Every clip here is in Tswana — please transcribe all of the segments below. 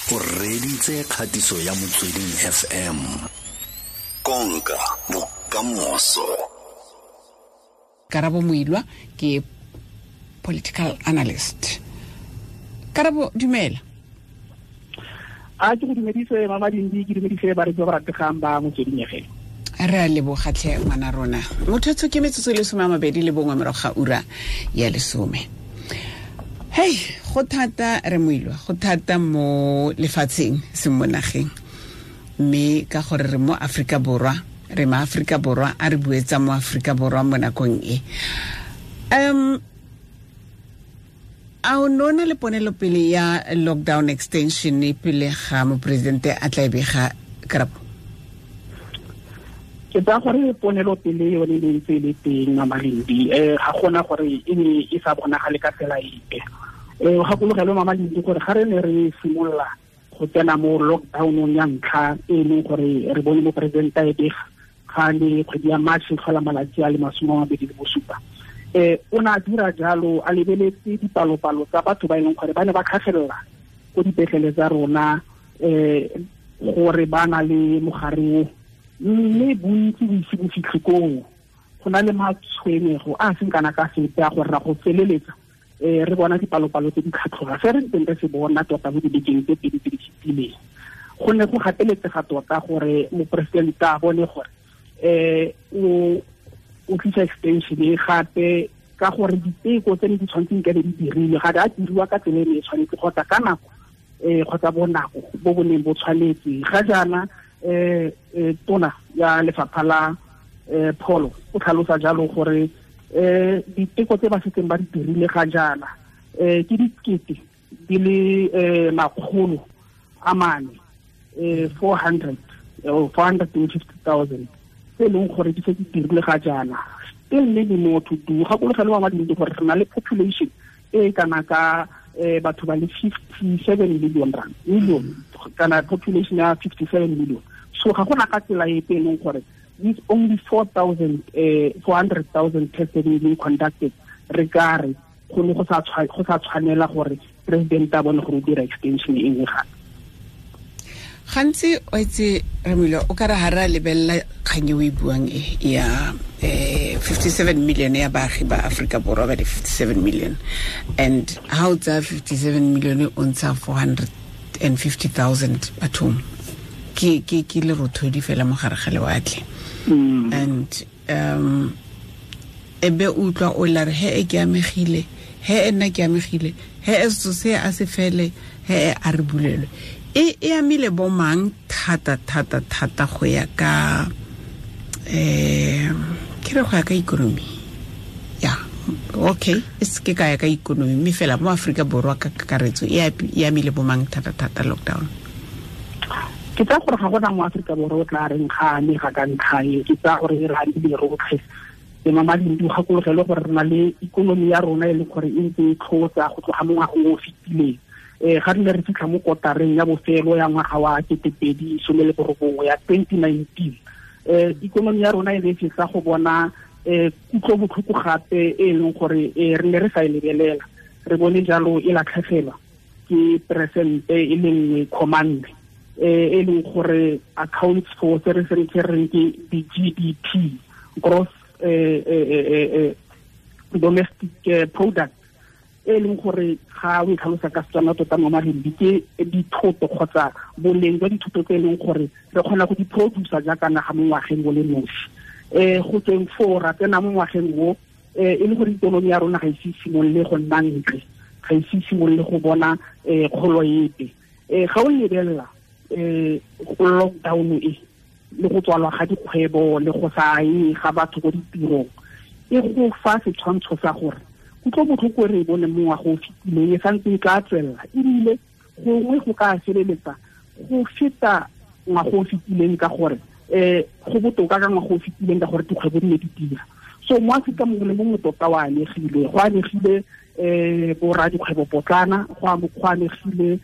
O reditse kgatiso ya Motsweding FM. Konka bokamoso. Karabo Moilwa ke political analyst. Karabo, dumela. A ke go dumedise Mama Dindi, ke dumedise bareetsi ba ba rategang ba Motsweding FM. Re a lebogatlhe ngwana rona. Motho ke metsotso le 21 morago ga ura ya 10. Hey, go thata re Moilwa, go thata mo lefatsheng se mo nageng. Mme ka gore re mo Afrika Borwa, re ma Afrika Borwa, a re buetsa mo Afrika Borwa mo nakong e. A o nona le ponelopele ya lockdown extension e pele ga moporesidente a tla e bega, Karabo? Ke tsaya gore ponelopele yone e ntse e le teng, Mama Lindi. Ga gona gore e ne e sa bonagale ka tsela epe. Gakologelwe, Mama Lindi, gore ga re ne re simolola go tsena mo lockdownong ya ntlha e leng gore re bone moporesidente a e bega ga le kgwedi ya March tlhola malatsi a le 27, o ne a dira jalo a lebeletse dipalopalo tsa batho ba e leng gore ba ne ba tlhagelela ko dipetlele tsa rona gore ba na le mogare o, mme bontsi bo ise bo fitlhe koo. Go na le matshwenyego a seng kana ka sepe a gore ra go feleletsa re bona dipalopalo tse di tlhatlhoga se re ntseng re se bona tota mo dibekeng tse pedi tse di fetileng. Go ne go gateletsega tota gore moporesidente a bone gore o tlisa extension e gape, ka gore diteko tse ne di tshwanetseng ka be di dirilwe ga di a diriwa ka tsela e ne e tshwanetse kgotsa ka nako kgotsa bonako bo bo neng bo tshwanetse. Ga jaana tona ya lefapha la pholo o tlhalosa jalo gore diteko tse ba setseng ba di dirile ga jaana ke dikete di le 400, 450,000 tse e leng gore di setse di dirile ga jaana. Still many more to do. Gakologelwe, Mama Dindi, gore re na le population e kana ka batho ba le 57 million rand million, kana population ya 57 million. So ga gona ka tsela epe e leng gore with only 400,000 tests being conducted re ka re go ne go sa tshwanela gore president a bone gore o dira extension e nngwe gape. Gantsi o itse re Moilwa, o ka re ha re a lebelela kgang e o e buang e ya 57 million ya baagi ba Afrika Borwa ba le 57 million, and ha o tsaya 57 million o ntsha 450,000 bathong, ke lerothodi fela mo gare ga lewatle. And e be utlwa o la re he e ke amegile, he e nna ke amegile, he e setso se a se fele, he e a re bulelwe. E amile bo mang thata thata thata go ya ka ke re go ya ka economy? Ya, okay, e se ke ka ya ka economy, mme fela mo Afrika Borwa ka kakaretso e amile bo mang thata thata lockdown? Ke tsaya gore ga gona mo Afrika Borwa o tla reng ga amega ka ntlha e. Ke tsaya gore re amile rotlhe. Le Mama Dindi, gakologelwe gore re na le ikonomi ya rona e leng gore e ntse e tlhotsa go tloga mo ngwageng o o fetileng. Ga re ne re fitlha mo kotareng ya bofelo ya ngwaga wa 2019 ya 2019, ikonomi ya rona e ne e fetsa go bona kutlobotlhoko gape e leng gore re ne re sa e lebelela. Re bone jalo e latlhegelwa ke peresente e le 1,4, e leng gore accounts for se re se reng ke di-GDP, gross domestic product, e leng gore ga o e tlhalosa ka Setswana tota mo Malindi ke dithoto kgotsa boleng jwa dithoto tse e leng gore re kgona go di producer jaaka naga mo ngwageng o le nosi. Go tsweng foo ra tsena mo ngwageng o e le gore ikonomi ya rona ga ise simolole go nna ntle, ga ise simolole go bona kgolo epe. Ga o lebelela lockdown e le go tswalwa ga dikgwebo le go sa ye ga batho ko ditirong, e go fa setshwantsho sa gore kutlobotlhoko e re e bone mo ngwaga o fetileng e santse e tla tswelela, ebile gongwe go ka feleletsa go feta ngwaga o fetileng ka gore go botoka ka ngwaga o fetileng ka gore dikgwebo di ne di dira. So mo Afrika mongwe le mongwe tota o amegile, go amegile borra dikgwebo potlana, go amegile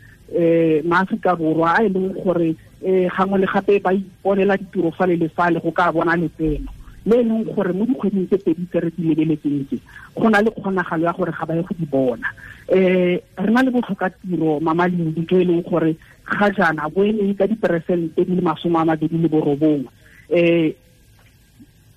maAforika Borwa a e leng gore gangwe le gape ba iponela ditiro fale le fale go ka bona letseno le e leng gore mo dikgweding tse pedi tse re di lebeletseng tse go na le kgonagalo ya gore ga ba ye go di bona. Re na le botlhokatiro, Mama Lindi, jo e leng gore ga jaana bo eme ka diperesente di le 29.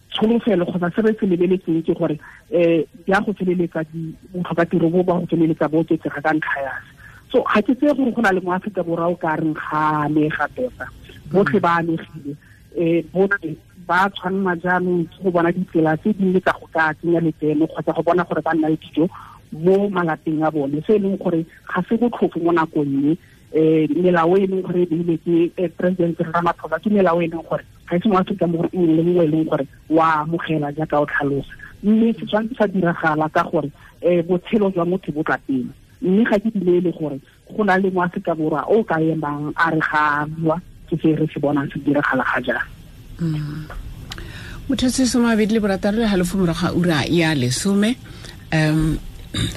Tsholofelo kgotsa se re se lebeletseng ke gore di a go feleletsa botlhokatiro bo ba go feleletsa bo oketsega ka ntlha ya se. So ga ke tseye gore go na le mo Aforika Borwa o ka reng ga amega tota, botlhe ba amegile, botlhe ba tshwanela jaanong ke go bona ditsela tse dingwe tsa go ka tsenya letseno kgotsa go bona gore ba nna le dijo mo malapeng a bone, se e leng gore ga se botlhofo mo nakong e. Melao e leng gore e beilwe ke President Ramaphosa ke melao e leng gore ga e se mo Aforika Borwa nngwe le nngwe e leng gore wa amogela jaaka o tlhalosa, mme se tshwanetse sa diragala ka gore botshelo jwa motho bo tla pele. Mme ga ke dumele gore go na le mo Aforika Borwa o ka emang a re ga a bua, ke se re se bonang se diragala ga jaana. Motho se soma bedi le borataro le halofo morago ga ura ya 10,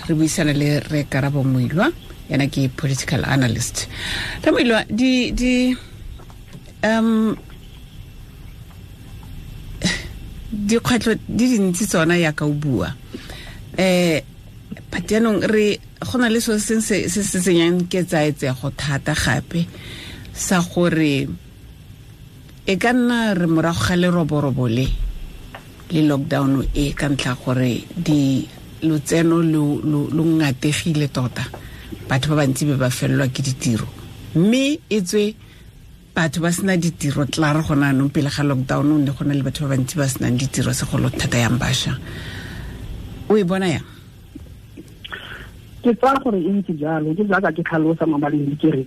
re buisana le re Karabo Moilwa, yena ke political analyst. Re Moilwa, di dikgwetlho di dintsi tsona yaka o bua, but jaanong re go na le selo se se se tsenyang ketsaetsego thata gape sa gore e ka nna re morago ga leroborobo le lockdown e ka ntlha gore di lotseno lo ngategile tota, batho ba bantsi be ba felelwa ke ditiro, mme e tswe batho ba sena ditiro tla re gona anong pele ga lockdown ne go na le batho ba bantsi ba senang ditiro segolo thata yang bašwa. O e bona yang? Ke tsaya gore e ntse jalo, ke jaaka ke tlhalosa mabaleng ke re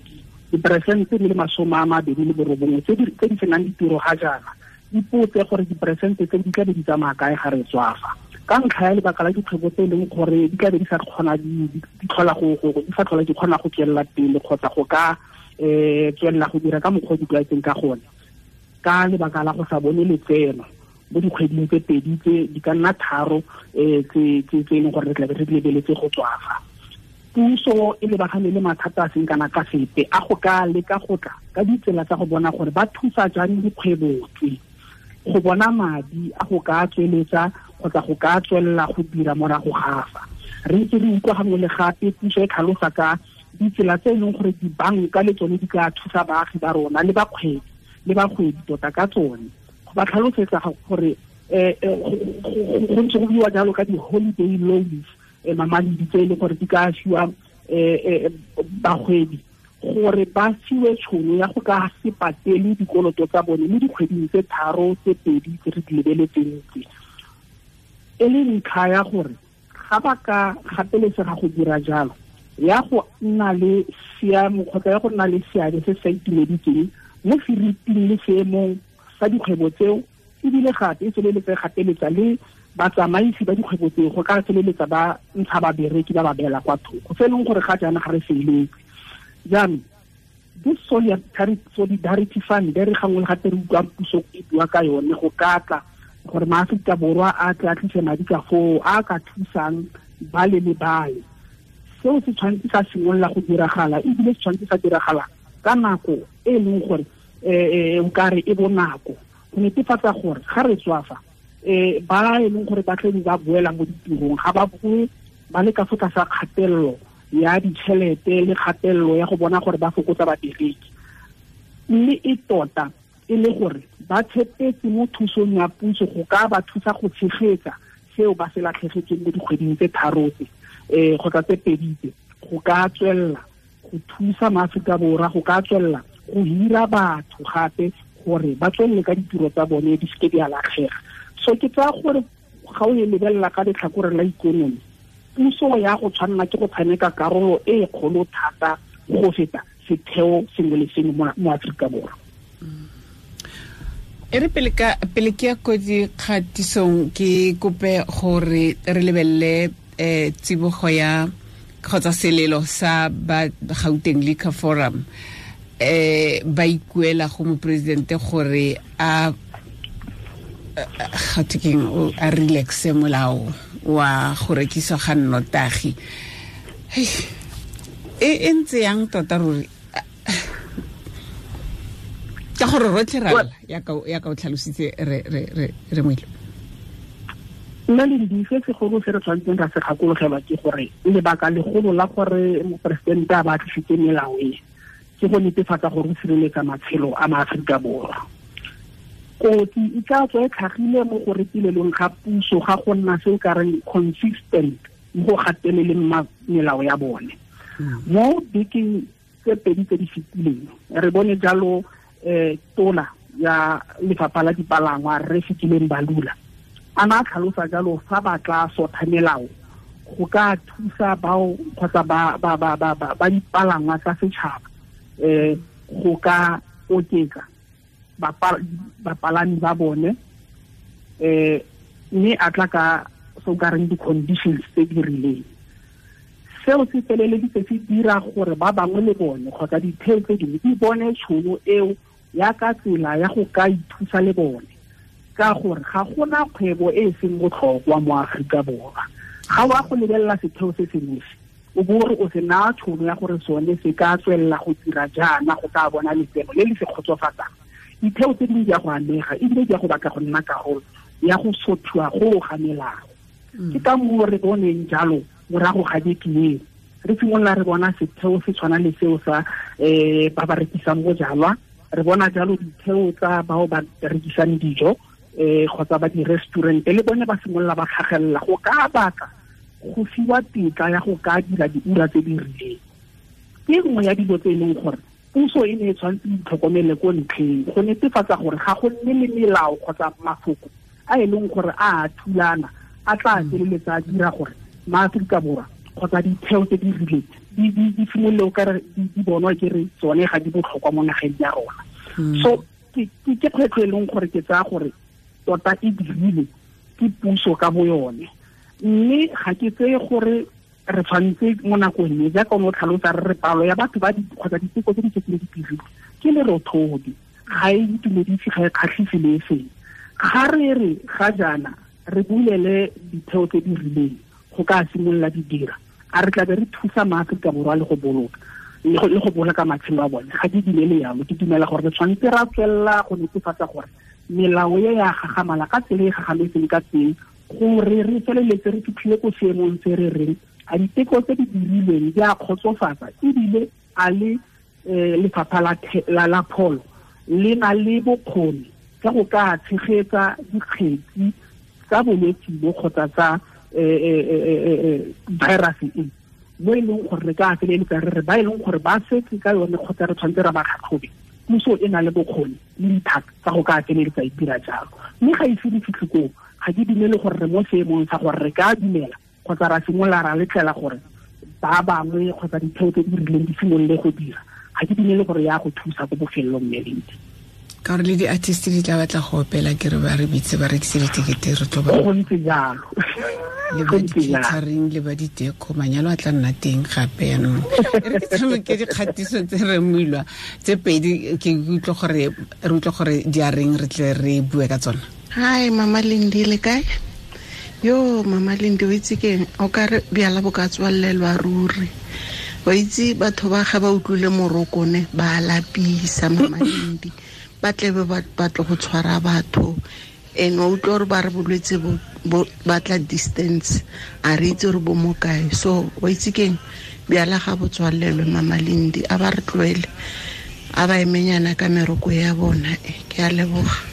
diperesente di le 29 tse di senang ditiro ga jaana, ipotse gore diperesente tse di tla be di tsamaya kae ga re tswafa, ka ntlha ya lebaka la dikgwebo tse e leng gore di tla be di sa kgona di tlhola go di sa tlhola di kgona go tswelela pele kgotsa go ka tswelela go dira ka mokgwa o di tlwaetseng ka gone, ka lebaka la go sa bone letseno mo dikgweding tse pedi tse di ka nna tharo tse e leng gore re tla be re di lebeletse go tswafa. Puso e lebagane le mathata a seng kana ka sepe a go ka leka go tla ka ditsela tsa go bona gore ba thusa jang dikgwebo tse go bona madi a go ka tsweletsa kgotsa go ka tswelela go dira morago ga fa. Re ntse re utlwa gangwe le gape puso e tlhalosa ka ditsela tse e leng gore dibanka le tsone di ka thusa baagi ba rona le bakgwebi tota ka tsone, go ba tlhalosetsa gore go ntse go buiwa jalo ka di-holiday loans, mamaledi tse e leng gore di ka fiwa bagwebi gore ba fiwe tšhono ya go ka se patele dikoloto tsa bone mo dikgweding tse 3 tse 2 tse re di lebeletseng tse, e le ntlha ya gore ga ba ka gapeletsega go dira jalo ya go nna le seemo kgotsa ya go nna le seabe se sa itumeditseng mo feriting le seemong sa dikgwebo tseo, ebile gape e feleletsa e gapeletsa le batsamaisi ba dikgwebo tseo go ka feleletsa ba ntsha babereki ba ba beela kwa thoko, se e leng gore ga jaana ga re feletse. Jaanong this solidarity fund re gangwe le gape re utlwang puso e bua ka yone go ka tla gore maAforika Borwa a tle a tlise madi ka foo a ka thusang bale le bale, seo se tshwanetse sa simolola go diragala, ebile se tshwanetse sa diragala ka nako e leng gore o kare e bonako go netefatsa gore ga re tswafa ba e leng gore ba tle ba boela mo ditirong ga ba boe ba le ka fo tlasa kgatelelo ya ditšhelete le kgatelelo ya go bona gore ba fokotsa babereki, mme e tota e le gore ba tshepetse mo thusong ya puso go ka ba thusa go tshegetsa seo ba se latlhegetseng mo dikgweding tse 3 tse kgotsa tse 2 tse, go ka tswelela go thusa maAforika Borwa, go ka tswelela go hira batho gape gore ba tswelele ka ditiro tsa bone di seke di a latlhega. So ke tsaya gore ga o e lebelela ka letlhakore la ikonomi, puso ya go tshwanela ke go tshameka karolo e kgolo thata go feta setheo sengwe le sengwe mo Aforika Borwa. E re pele ke ya ko dikgatisong ke kope gore re lebelele tsibogo ya kgotsa selelo sa ba Gauteng Liquor Forum, ba ikuela go moporesidente gore a gatekeng a relaxe molao wa go rekiswa ga nnotagi. E ntse yang tota ruri, ka gore rotlhe ra lla ya ka o tlhalositse re Moilwa. Nna le dife segolo se re tshwanetseng ra se gakologelwa ke gore lebaka legolo la gore moporesidente a ba tlisitse melao e ke go netefatsa gore o sireletsa matshelo a maAforika Borwa. Kotsi e tla tswa e tlhagile mo go retilelong ga puso ga go nna se o ka reng consistent mo go gateleleng melao ya bone. Mo bekeng tse pedi tse di fetileng re bone jalo tola ya lefapha la dipalangwa re Fikile Mbalula a na tlhalosa jalo fa ba tla sotha melao go ka thusa bao kgotsa ba dipalangwa tsa setšhaba go ka oketsa bapalami ba bone mme a tla ka so ka reng di-conditions tse di rileng. Seo se feleleditse se dira gore ba bangwe le bone kgotsa ditheo tse dingwe di bone tšhono eo ya ka tsela ya go ka ithusa le bone, ka gore ga gona kgwebo e e seng botlhokwa mo Aforika Borwa. Ga wa go lebelela setheo se se nosi o bo re o se naya tšhono ya gore sone se ka tswelela go dira jaana go ka bona letseno le le se kgotsofatsang. Ditheo tse dingwe di a go amega ebile di a go batla go nna karolo ya go sothiwa go ga melao. Ke ka moo re boneng jalo morago ga beke eo re simolola re bona setheo se tshwana le seo sa ba ba rekisang bojalwa, re bona jalo ditheo tsa bao ba rekisang dijo kgotsa ba di-restaurant le bone ba simolola ba tlhagelela go ka batla go fiwa tetla ya go ka dira diura tse di rileng. Ke nngwe ya dilo tse e leng gore puso e ne e tshwanetse e itlhokomele ko ntlheng go netefatsa gore ga go nne le melao kgotsa mafoko a e leng gore a thulana a tla feleletsa a dira gore maAforika Borwa kgotsa ditheo tse di rileng di simolole o kare di bonwa ke re tsone ga di botlhokwa mo nageng ya rona. So ke kgwetlho e leng gore ke tsaya gore tota e dirile ke puso ka bo yone, mme ga ke tseye gore re tshwanetse mo nakong e jaaka o ne o tlhalosa re re palo ya batho ba kgotsa diteko tse di setseng di dirilwe ke lerothodi, ga e itumedise, ga e kgatlhise le e seng. Ga re re ga jaana re bulele ditheo tse di rileng go ka simolola di dira, a re tlabe re thusa maAforika Borwa le go boloka le go boloka matshelo a bone. Ga ke dumele yalo, ke dumela gore re tshwanetse ra tswelela go netefatsa gore melao e ya gagamala ka tsela e gagametseng ka teng gore re feleletse re fitlhile ko seemong se re reng a diteko tse di dirilweng di a kgotsofatsa ebile a le lefapha la pholo le na le bokgoni ka go ka tshegetsa dikgetsi tsa bolwetse bo kgotsa tsa virus e mo e leng gore re ka feleletsa re re ba e leng gore ba setse ka yone kgotsa re tshwanetse ra ba tlhatlhobe. Puso e na le bokgoni le dithata tsa go ka feleletsa e dira jalo, mme ga ise di fitlhe koo ga ke dumele gore re mo seemong sa gore re ka dumela kgotsa ra simolola ra letlela gore ba bangwe kgotsa ditheo tse di rileng di simolole go dira. Ga ke dumele gore ya go thusa ko bofelelong mme. Ka gore le di-artist di tla batla go opela ke re ba re bitse ba rekise ditekete re tlo ba go ntse jalo le ba di-catering le ba diteko manyalo a tla nna teng gape yanong. E re ke tshameke dikgatiso tse re moilwa tse pedi ke utlwe gore re utlwe gore di a reng re tle re bue ka tsona. Hi Mama Lindi, le kae? Yo Mama Lindi, o itse keng o ka re bjala bo ka tswalelwa ruri. Wa itse batho ba ga ba utlwile morokone ba lapisa Mama Lindi, ba tlebe ba batla go tshwara batho and wa utlwa gore ba re bolwetse bo batla distance, a re itse gore bo mo kae. So wa itse keng bjala ga bo tswalelwe Mama Lindi, a ba re tloele, a ba emenyana ka meroko ya bona. Ke a leboga.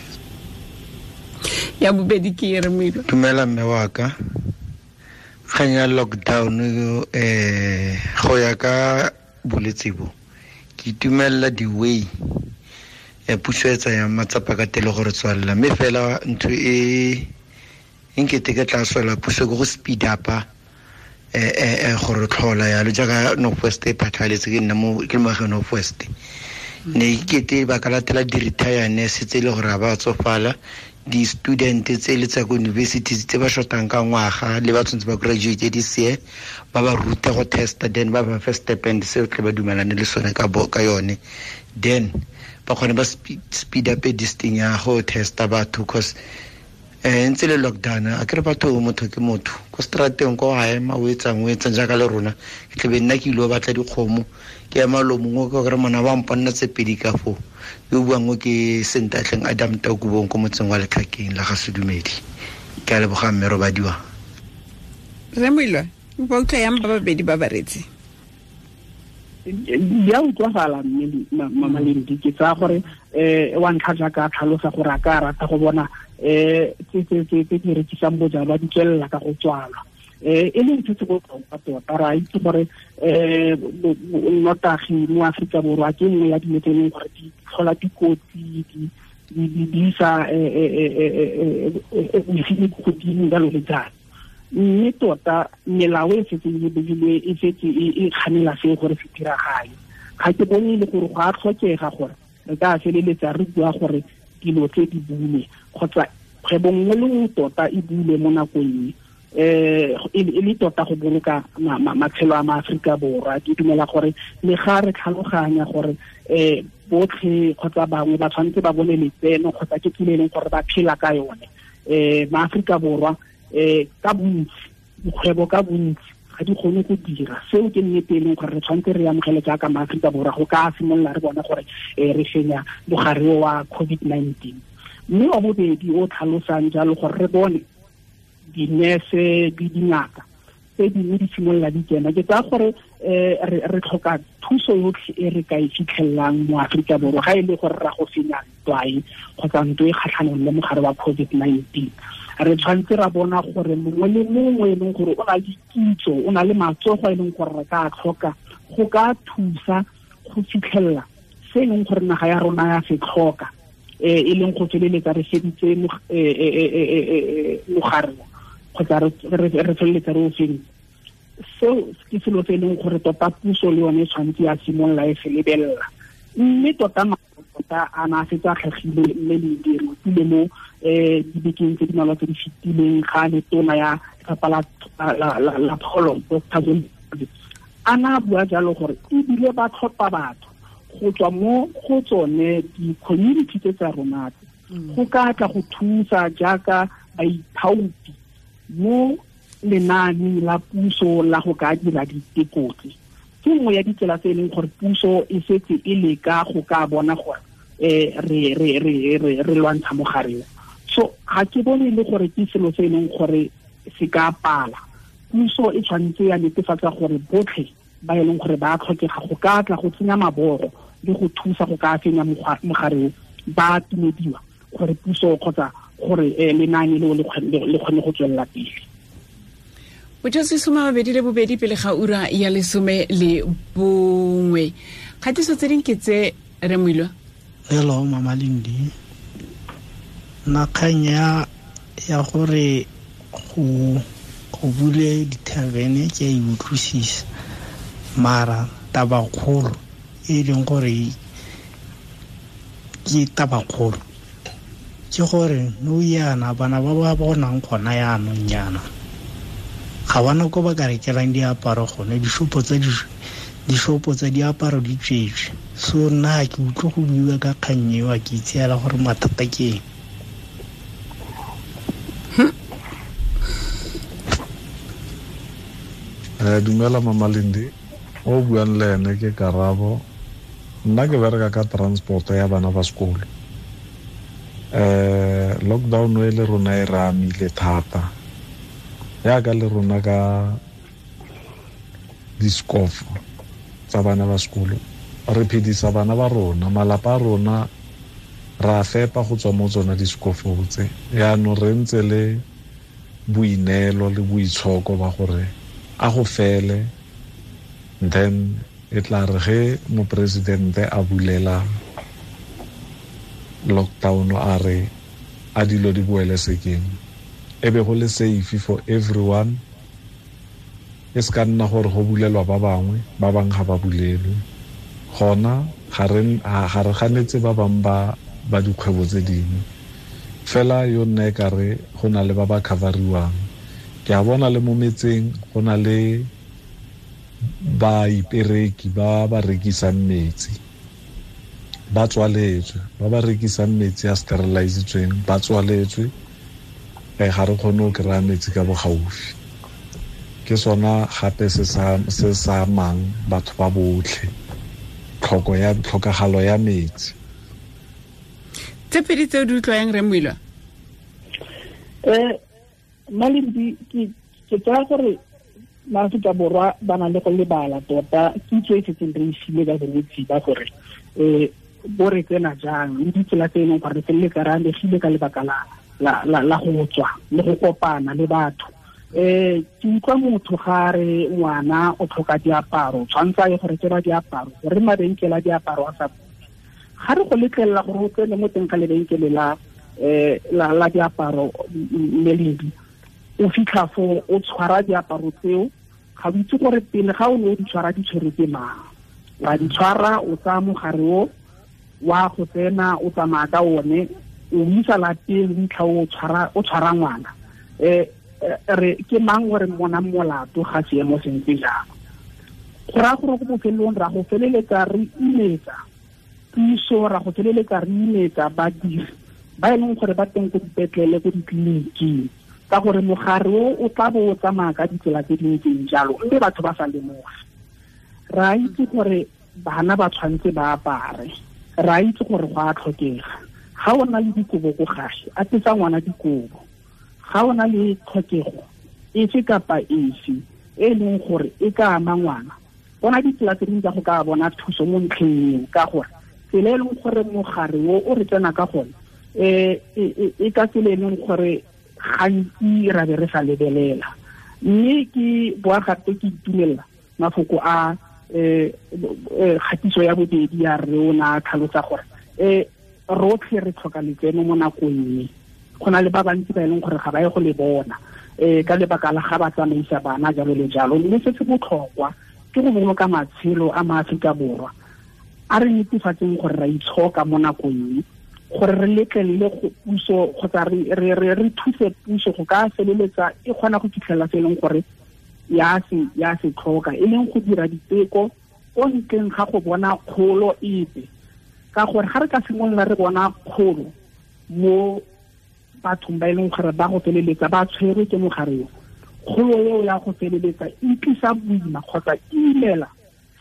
Ya bobedi ke re moilwa. Dumela mme wa ka. Kgang ya lockdown go ya ka bolwetse bo ke itumelela di-way ya puso e tsayang matsapa ka tele gore tswalela, mme fela ntho e nkete ke tla swela puso ke go speed up-a gore tlhola yalo jaaka North West e phatlhaletse, ke nna mo ke le moagi North West. Ne ke ba ka latela di-retire nurse tse e le gore ga ba tsofala, di-student tse le tsa ko universities tse ba shotang ka ngwaga le ba tshwanetse ba graduate this year, ba ba rute go testa, then ba ba fe stipend seo tle ba dumelane le sone ka yone, then ba kgone ba speed up this thing ya go testa batho, cause ntse le lockdown a kere batho motho ke motho ko strateng ko a ema o etsang jaaka le rona ke tlebe nna ke ile go batla dikgomo ke ema lo mongwe ka gore mona ba mponna tse pedi ka foo yo buang ke Sentatleng Adam Takubong ko motseng wa Letlhakeng la ga Sedumedi. Ke a leboga mme robadiwa. Re moilwa ba utlwa yang ba babedi ba baretsi. Di a utlwagala mme Mama Lendi, ke tsaya gore wa ntlha jaaka a tlhalosa gore a ka rata go bona tse di rekisang bojalwa di tswelela ka go tswalwa. E leng se se botlhokwa tota, re a itse gore nnotagi mo Aforika Borwa ke nngwe ya dilo tse e leng gore di tlhola dikotsi, di isa bosenyi ko godimo jalo le jalo. Mme tota melao e setseng e beilwe e setse e kganela seo gore se diragale. Ga ke bone e le gore go a tlhokega gore re ka feleletsa re bua gore dilo tse di bulwe kgotsa kgwebo nngwe le nngwe tota e bulwe mo nakong e le tota go boloka matshelo a maAforika Borwa. Ke dumela gore le ga re tlhaloganya gore botlhe kgotsa bangwe ba tshwanetse ba bone letseno kgotsa ke tsela e leng gore ba phela ka yone, maAforika Borwa ka bontsi, dikgwebo ka bontsi ga di kgone go dira seo. Ke nnete e leng gore re tshwanetse re amogele jaaka maAforika Borwa go ka simolola re bona gore re fenya mogare wa COVID-19. Mme wa bobedi o tlhalosang jalo gore re bone dinese le dingaka tse dingwe di simolola di kena, ke tsaya gore re tlhoka thuso yotlhe e re ka e fitlhelelang mo Aforika Borwa ga e le gore ra go fenya ntwa e kgotsa ntwa e kgatlhanong le mogare wa COVID-19. Re tshwanetse ra bona gore mongwe le mongwe e leng gore o na le kitso, o na le matsogo e leng gore re ka tlhoka go ka thusa go fitlhelela se e leng gore naga ya rona ya se tlhoka, e leng go feleletsa re feditse mogare kgotsa re feleletsa re o feditse. Seo ke selo se e leng gore tota puso le yone e tshwanetse ya simolola e se lebelela. Mme tota tota a na a setse a tlhagile mme le dirutile mo dibekeng tse di malwa tse di fetileng ga le tona ya lefapha la pholo Dr. Zweli a na bua jalo gore ebile ba tlhopha batho go tswa mo go tsone di-community tse tsa rona go ka tla go thusa jaaka baithaopi mo lenaaneng la puso la go ka dira diteko tse. Ke nngwe ya ditsela tse e leng gore puso e setse e leka go ka bona gore re lwantsha mogare o. So ga ke bone e le gore ke selo se e leng gore se ka pala. Puso e tshwanetse ya netefatsa gore botlhe ba e leng gore ba tlhokega go ka tla go tsenya mabogo le go thusa go ka fenya mogare o ba tumediwa gore puso kgotsa gore lenaane leo le kgone go tswelela pele. Botsotsi 22 pele ga ura ya 11. Kgatiso tse ding ke tse re Moilwa. Hello Mama Lendi. Nna kgang ya gore go bule dithavene ke a e utlwisisa, mara tabakgolo e leng gore ke tabakgolo ke gore nou yana bana ba ba bonang gona yaanong yana ga bana ko ba ka rekelang diaparo gone, dishopo tsa diaparo di tswetswe. So nna ke utlwe go buiwa ka kgang eo, ke itseela gore mathata ke eng. Dumela Mama Lendi, o buang le ene ke Karabo. Nna ke bereka ka transport ya bana ba sekolo. Lockdown e le rona e re amile thata, yaka le rona ka diskofo tsa bana ba sekolo. Re phedisa bana ba rona, malapa a rona ra fepa go tswa mo tsona diskofo tse. Yaanong re ntse le boineelo le boitshoko ba gore a go fele, then e tla re ge moporesidente a bulela lockdown a re a dilo di boele sekeng, e be go le safe for everyone. E se ka nna gore go bulelwa ba bangwe, ba bangwe ga ba bulelwe. Gona ga re ganetse ba bangwe ba dikgwebo tse dingwe, fela yo nna e kare go na le ba ba coveriwang. Ke a bona le mo metseng go na le baipereki ba ba rekisang metsi, ba tswaletswe, ba ba rekisang metsi a sterilizitsweng ba tswaletswe. Ga re kgone go kry-a metsi ka bogaufi. Ke sona gape se sa amang batho ba botlhe, tlhokagalo ya metsi. Tse pedi tse o di utlwang re Moilwa? Malindi, ke tsaya gore maAforika Borwa ba na le go lebala tota kitso e setseng re e filwe ka bolwetse ba gore bo re tsena jang le ditsela tse e leng gore re feleletsa re amegile ka lebaka la go tswa le go kopana le batho. Ke utlwa motho ga re ngwana o tlhoka diaparo, tshwanetse a ye go rekelwa diaparo, gore mabenkele a diaparo a sa bule. Ga re go letlelela gore o tsene mo teng ga lebenkele la diaparo meledi, o fitlha fo o tshwara diaparo tseo, ga o itse gore pele ga o ne o di tshwara di tshwerwe ke mang. Wa di tshwara, o tsaya mogare o, wa go tsena, o tsamaya ka one, o isa lapeng, o fitlha o tshwara ngwana. Re ke mang gore mona molato ga seemo se ntse jang? Go raya gore go bofelong ra go feleletsa re imetsa puso, ra go feleletsa re imetsa badiri ba e leng gore ba teng ko dipetlele, ko ditleliniking, ka gore mogare o tla bo o tsamaya ka ditsela tse di ntseng jalo, mme batho ba sa lemoge. Re a itse gore bana ba tshwanetse ba apare, re a itse gore go a tlhokega. Ga o na le dikobo ko gae, apesa ngwana dikobo. Ga o na le tlhokego efe kapa efe e leng gore e ka ama ngwana, bona ditsela tse dingwe tsa go ka bona thuso mo ntlheng eo, ka gore tsela e leng gore mogare o re tsena ka gone, e ka tsela e leng gore gantsi ra be re sa lebelela. Mme ke boa gape ke itumelela mafoko a kgatiso ya bobedi ya re o na tlhalosa gore rotlhe re tlhoka letseno mo nakong e. Go na le ba bantsi ba e leng gore ga ba ye go le bona ka lebaka la ga ba tsamaisa bana jalo le jalo. Mme se se botlhokwa ke go boloka matshelo a maAforika Borwa. A re netefatseng gore ra itshoka mo nakong e, gore re letlelele go puso kgotsa re thuse puso go ka feleletsa e kgona go fitlhelela se e leng gore ya se tlhoka, e leng go dira diteko ko ntleng ga go bona kgolo epe. Ka gore ga re ka simolola re bona kgolo mo bathong ba e leng gore ba go feleletsa ba tshwerwe ke mogare o, kgolo eo ya go feleletsa e tlisa boima kgotsa e imela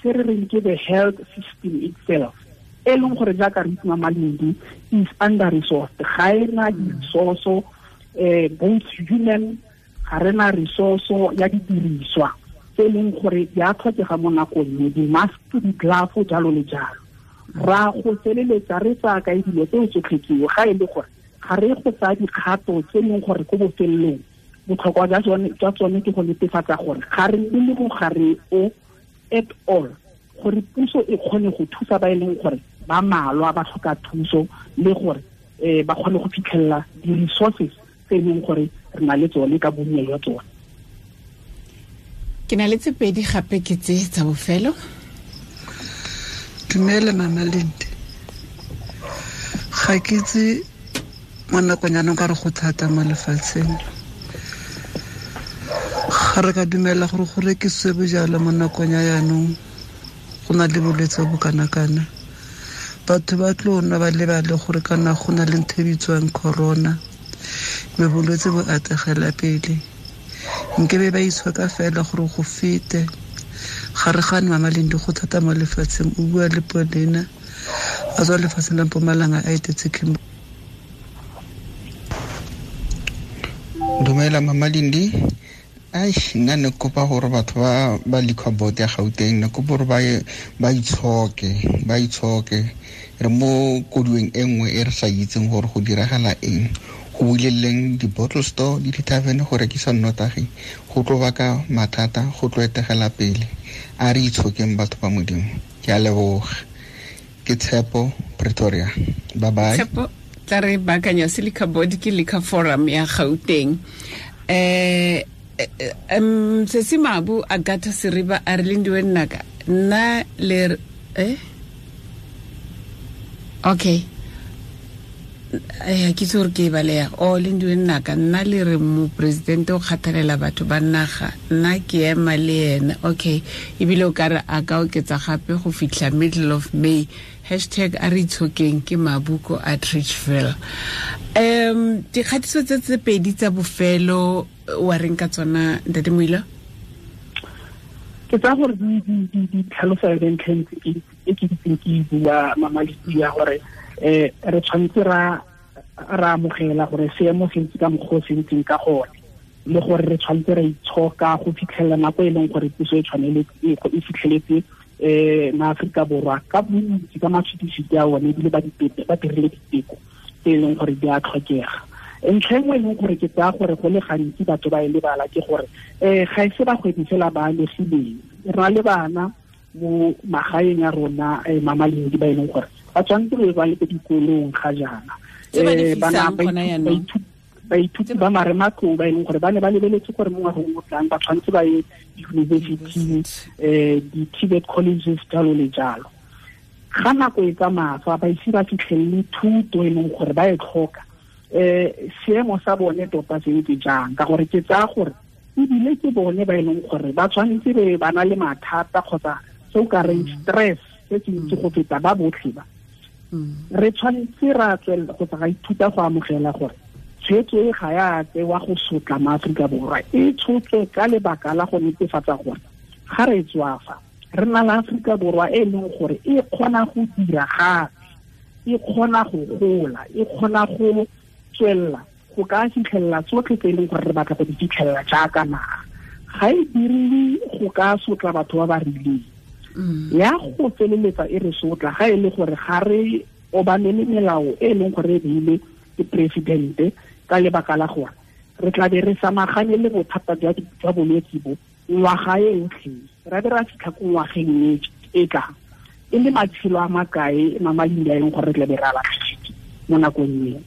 se re reng ke the health system itself, e leng gore jaaka re itse Malindi is under resourced, ga e na di-resource both human, ga re na resource ya didiriswa tse e leng gore di a tlhokega mo nakong e, di-mask, di-glove, jalo le jalo. Ra go feleletsa re tsaya kae dilo tseo tsotlhe tseo ga e le gore ga re go tsaya dikgato tse e leng gore ko bofelelong botlhokwa jwa tsone ke go netefatsa gore ga re nne le mogare o at all, gore puso e kgone go thusa ba e leng gore ba malwa ba tlhoka thuso, le gore ba kgone go fitlhelela di-resources tse e leng gore re na le tsone ka bonnye jwa tsone. Ke na le tse pedi gape ke tse tsa bofelo. Dumela Mama Lindi. Ga ke itse mo nakong ya ka re go thata mo lefatsheng. Ga re ka dumela gore go rekisiwe bojalwa mo nakong ya jaanong, go na le bolwetse bo kana-kana. Batho ba tlo nwa ba lebale gore kana go na le ntho e bitswang corona, mme bolwetse bo ategela pele. Nkebe ba itshoka fela gore go fete. Ga re gane Mama Lindi, go thata mo lefatsheng. O bua le Paulina a tswa lefatsheng la Mpumalanga a etetse Kimberley. Dumela Mama Lindi. Ai, nna ne kopa gore batho ba liquor board ya Gauteng, ne kopa gore ba itshoke. Re mo kodueng e nngwe e re sa itseng gore go diragala eng. Go buleleng di-bottle store le di-tavern go rekisa nnotagi, go tlo baka mathata, go tlo etegela pele. A re itshokeng batho ba Modimo. Ke a leboga. Ke Tshepo, Pretoria. Bye bye. Tshepo, tla re baakanya se liquor board ke liquor forum ya Gauteng. Sesi Mabu Agatha Seriba a re Lindiwe nnaka nna le okay, ke itse gore ke e baleya. O Lindiwe nnaka nna le re moporesidente o kgathalela batho ba naga, nna ke ema le ena. Okay, ebile o ka re a ka oketsa gape go fitlha middle of May. Hashtag a re itshokeng ke Mabuko a Trichville. Dikgatiso tse pedi tsa bofelo wa reng ka tsona Ntate Moila? Ke tsaya gore di tlhalosa yone ntlha e ke itseng ke e bua Mama Lindi ya gore re tshwanetse ra amogela gore seemo se ntse ka mokgwa o se ntseng ka gone. Le gore re tshwanetse ra itshoka go fitlhelela nako e leng gore puso e tshwanele e fitlheletse maAforika Borwa ka bontsi ka matshwititshwiti a one, ebile ba dirile diteko tse e leng gore di a tlhokega. Ntlha e nngwe e leng gore ke tsaya gore go le gantsi batho ba e lebala ke gore ga e se bagwebi fela ba amegileng, re na le bana mo magaeng a rona, Mama Lendi, ba e leng gore ba tshwanetse be ba le ko dikolong ga jaana, bana baithuti ba marematlou ba e leng gore ba ne ba lebeletse gore mo ngwageng o tlang ba tshwanetse ba ye di-university, di-TVET colleges, jalo le jalo. Ga nako e tsamaya fa ba ise ba fitlhelele thuto e leng gore ba e tlhoka, seemo sa bone tota se ntse jang? Ka gore ke tsaya gore ebile ke bone ba e leng gore ba tshwanetse be ba na le mathata kgotsa se o ka reng stress se se ntsi go feta ba botlhe ba. Re tshwanetse ra tswelela kgotsa ra ithuta go amogela gore tshwetso e ga ya tsewa go sotla maAforika Borwa, e tshotswe ka lebaka la go netefatsa gore ga re tswafa re na le Aforika Borwa e leng gore e kgona go dira gape, e kgona go gola, e kgona go tswelela go ka fitlhelela tsotlhe tse e leng gore re batla go di fitlhelela jaaka naga. Ga e diriwe go ka sotla batho ba ba rileng, ya go feleletsa e re sotla ga e le gore ga re obamele melao e leng gore e beile ke presidente, ka lebaka la gore re tla be re samagane le bothata jwa bolwetse bo ngwaga e yotlhe, ra be ra fitlha ko ngwageng e tlang e le matshelo a makae, Mama Lendi, a e leng gore re tla be re a latlhegetse mo nakong eo,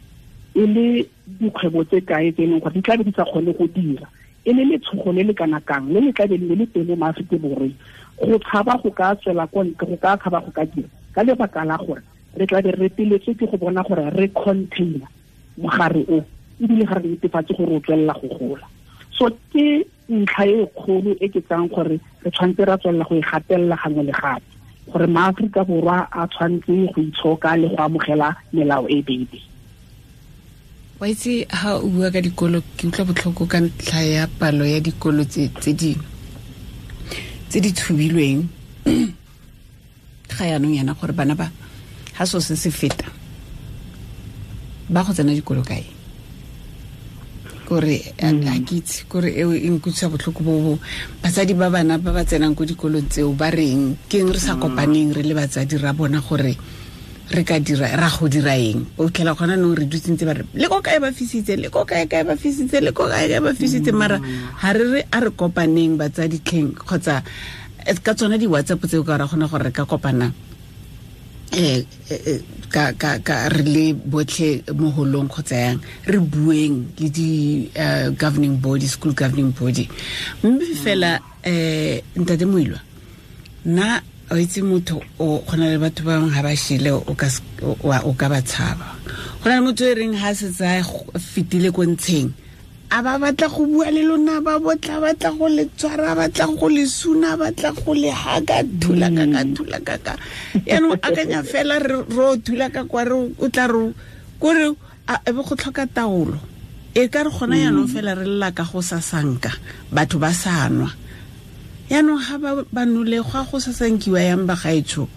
e le dikgwebo tse kae tse e leng gore di tla be di sa kgone go dira, e le letshogo le le kana kang le le tla be le le teng mo maAforika Borweng go tshaba go ka tswela kwa ntle, go ka tshaba go ka dira, ka lebaka la gore re tla be re reteletswe ke go bona gore re container mogare o, ebile ga re netefatse gore o tswelela go gola. So ke ntlha e kgolo e ke tsang gore re tshwanetse ra tswelela go e gatelela gangwe le gape, gore maAforika Borwa a tshwanetse go itshoka le go amogela melao e beileng. Wa itse ha o bua ka dikolo, ke utlwa botlhoko ka ntlha ya palo ya dikolo tse di tshubilweng ga yaanong yana, gore bana ba ha so se se feta ba go tsena dikolo kae? Kore a ke itse, kore eo e nkutlwisa botlhoko bo batsadi ba bana ba ba tsenang ko dikolong tseo ba reng ke eng re sa kopaneng re le batsadi ra bona gore re ka dira ra go dira eng. O tlhela gona no re dutse ntse ba re le ko kae ba fisitse, le ko kae kae ba fisitse, le ko kae kae ba fisitse, mara ha re re a re kopaneng batsadi tlheng, kgotsa ka tsona di-WhatsApp tseo ka ra kgona gore re ka kopana ka re le botlhe mo holong kgotsa yang re bueng le di governing body, school governing body. Mme fela ntate Moilwa, nna o itse motho o gona le batho ba bangwe ga ba shile o ka ba tshaba. Go na le motho e reng ha setse a fetile ko ntsheng a ba batla go bua le lona, ba botla batla go le tshwara, batla go le suna, batla go le haka, thula ka thula ka. Yaanong akanya fela re o thula ka kwa re o tla re kore e be go tlhoka taolo. E ka re gona yaanong fela re lla ka go sasanka batho ba sa nwa. Yaanong ga ba nole go a go sasankiwa yang ba gaetsho.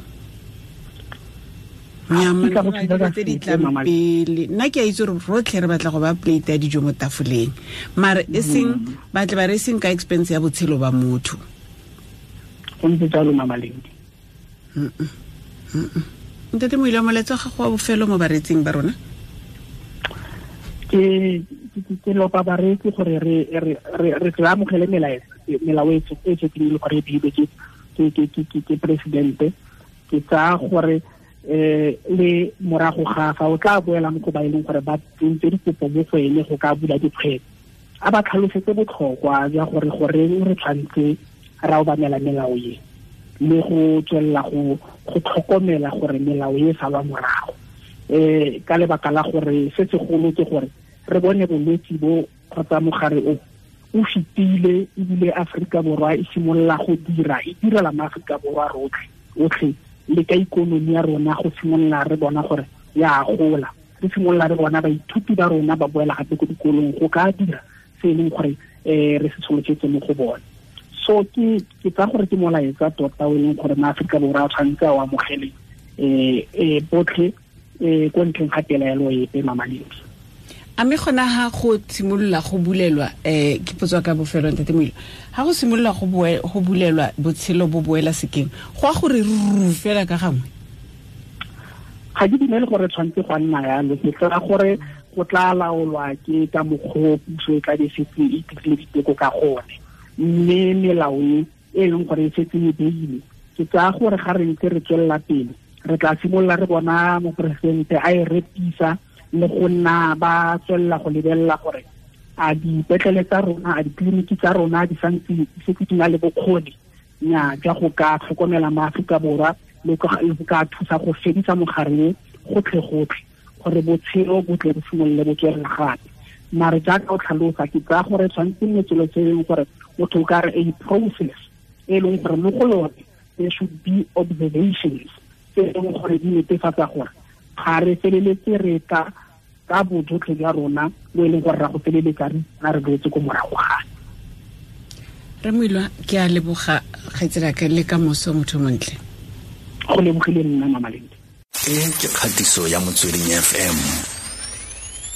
Tse di tlang pele nna ke a itse gore rotlhe re batla go ba plate ya dijo mo tafoleng, mare e seng batle ba re seng ka expense ya botshelo ba motho. Go ntse jalo, Mama Lendi. Ntate Moilwa, molaetsa wa gago wa bofelo mo baretsing ba rona? Ke lopa bareetsi gore re re amogele melao e setseng e le gore e beilwe ke presidente. Ke tsaya gore le morago ga fa o tla boela mo go ba e leng gore ba tsentse dikopo mo go ene go ka bula dikgwebo, a ba tlhalosetse botlhokwa jwa gore goreng re tshwanetse ra obamela melao e, le go tswelela go tlhokomela gore melao e salwa morago. Ka lebaka la gore se segolo ke gore re bone bolwetse bo kgotsa mogare o o fetile, ebile Aforika Borwa e simolola go dira, e direla maAforika Borwa rotlhe otlhe, le ka ikonomi ya rona go simolola re bona gore ya gola, re simolola re bona baithuti ba rona ba boela gape ko dikolong go ka dira se e leng gore re se tsholofetse mo go bone. So ke tsaya gore ke molaetsa tota o e leng gore maAforika Borwa a tshwanetse a o amogele botlhe ko ntleng ga pelaelo epe, Mama Lendi. A mme gona ha go simolola go bulelwa, ke potso ka bofelo, ntate Moilwa, ha go simolola go bulelwa botshelo bo boela sekeng, go a gore ruru fela ka gangwe? Ga ke dumele gore tshwanetse go nna yalo. Ke tsaya gore go tla laolwa ke ka mokgwa puso e tla be setse e dirile diteko ka gone, mme melao e leng gore e setse e beile, ke tsaya gore ga re ntse re tswelela pele re tla simolola re bona moporesidente a e repisa le go nna ba tswelela go lebelela gore a dipetlele tsa rona, a ditleliniki tsa rona di santse di setse di na le bokgoni nya jwa go ka tlhokomela maAforika Borwa le go ka thusa go fedisa mogare gotlhe-gotlhe, gore botshelo bo tle bo simolole bo tswelela gape. Mare jaaka o tlhalosa, ke tsaya gore tshwanetse nne tselo tse e leng gore motho o ka re a process e leng gore mo go yone there should be observations tse e leng gore di netefatsa gore ga re feleletse re tla ka bojotlhe jwa rona bo e leng gore ra go feleletsa re re boetse ko morago gape. Re Moilwa, ke a leboga kgaitsedi le ka moso, motho montle. Go lebogile nna, Mama Lindi. E ke kgatiso ya Motsweding FM,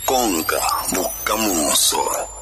konka bokamoso.